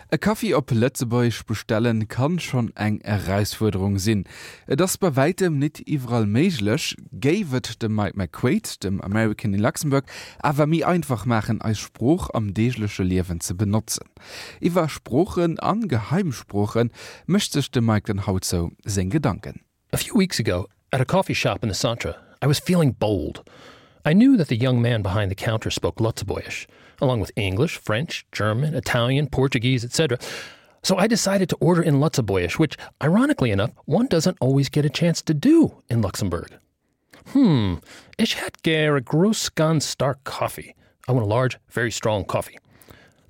E Kaffee op Lëtzebuich bestellen kann schon eng Herausforderung sinn. Das bei weitem net iwwerall méiglech, géiwet dem Mike McQuaid, dem American in Luxemburg, awer mi einfach machen als Spruch am deeglesche Liewen ze benutzen. Iwer Spruchen an Geheimsprochen mëchtech dem Mike den Haut so sinn Gedanken. A few weeks ago, at a coffee shop in the Centre, I was feeling bold. I knew that the young man behind the counter spoke Lutzebuish, along with English, French, German, Italian, Portuguese, etc. So I decided to order in Lutzebuish, which, ironically enough, one doesn't always get a chance to do in Luxembourg. Ich hätte gern a groß ganz stark coffee. I want a large, very strong coffee.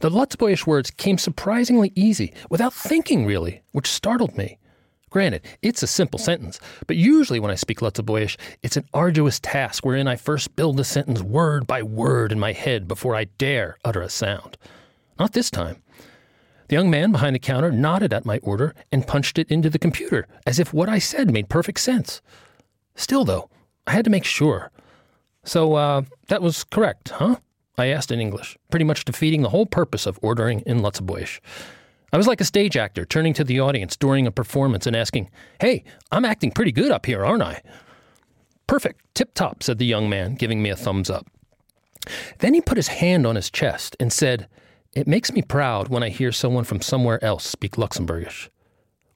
The Lutzebuish words came surprisingly easy, without thinking really, which startled me. Granted, it's a simple sentence, but usually when I speak Lutzebuish, it's an arduous task wherein I first build the sentence word by word in my head before I dare utter a sound. Not this time. The young man behind the counter nodded at my order and punched it into the computer, as if what I said made perfect sense. Still, though, I had to make sure. So, that was correct, huh? I asked in English, pretty much defeating the whole purpose of ordering in Lutzebuish. I was like a stage actor turning to the audience during a performance and asking, "Hey, I'm acting pretty good up here, aren't I?" "Perfect, tip-top," said the young man, giving me a thumbs up. Then he put his hand on his chest and said, "It makes me proud when I hear someone from somewhere else speak Luxembourgish."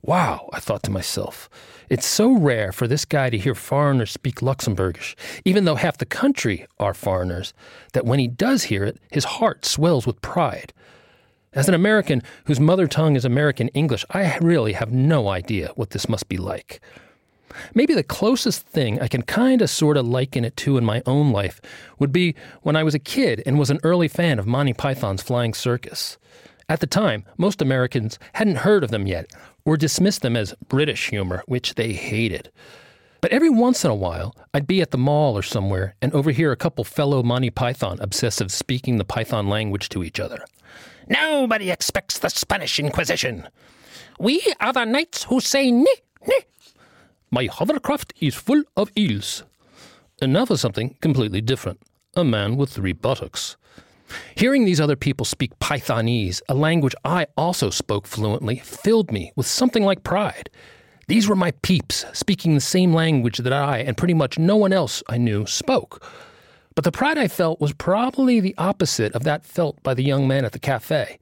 Wow, I thought to myself. It's so rare for this guy to hear foreigners speak Luxembourgish, even though half the country are foreigners, that when he does hear it, his heart swells with pride. As an American whose mother tongue is American English, I really have no idea what this must be like. Maybe the closest thing I can sorta liken it to in my own life would be when I was a kid and was an early fan of Monty Python's Flying Circus. At the time, most Americans hadn't heard of them yet, or dismissed them as British humor, which they hated. But every once in a while, I'd be at the mall or somewhere and overhear a couple fellow Monty Python obsessives speaking the Python language to each other. "Nobody expects the Spanish Inquisition. We are the knights who say ni, ni. My hovercraft is full of eels." And now for something completely different. A man with 3 buttocks. Hearing these other people speak Pythonese, a language I also spoke fluently, filled me with something like pride. These were my peeps, speaking the same language that I and pretty much no one else I knew spoke. But the pride I felt was probably the opposite of that felt by the young man at the cafe.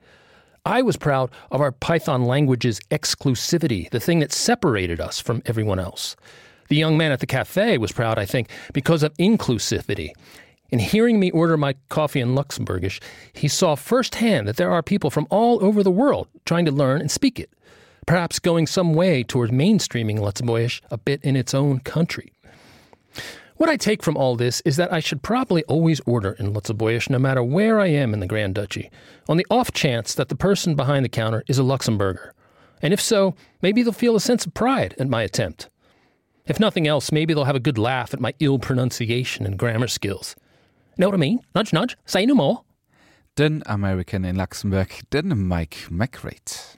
I was proud of our Python language's exclusivity, the thing that separated us from everyone else. The young man at the cafe was proud, I think, because of inclusivity. In hearing me order my coffee in Luxembourgish, he saw firsthand that there are people from all over the world trying to learn and speak it, perhaps going some way toward mainstreaming Lutzebuish a bit in its own country. What I take from all this is that I should probably always order in Lutzebuish no matter where I am in the Grand Duchy, on the off chance that the person behind the counter is a Luxembourger. And if so, maybe they'll feel a sense of pride at my attempt. If nothing else, maybe they'll have a good laugh at my ill pronunciation and grammar skills. Know what I mean? Nudge, nudge, say no more. Den American in Luxemburg, den Mike McQuaid.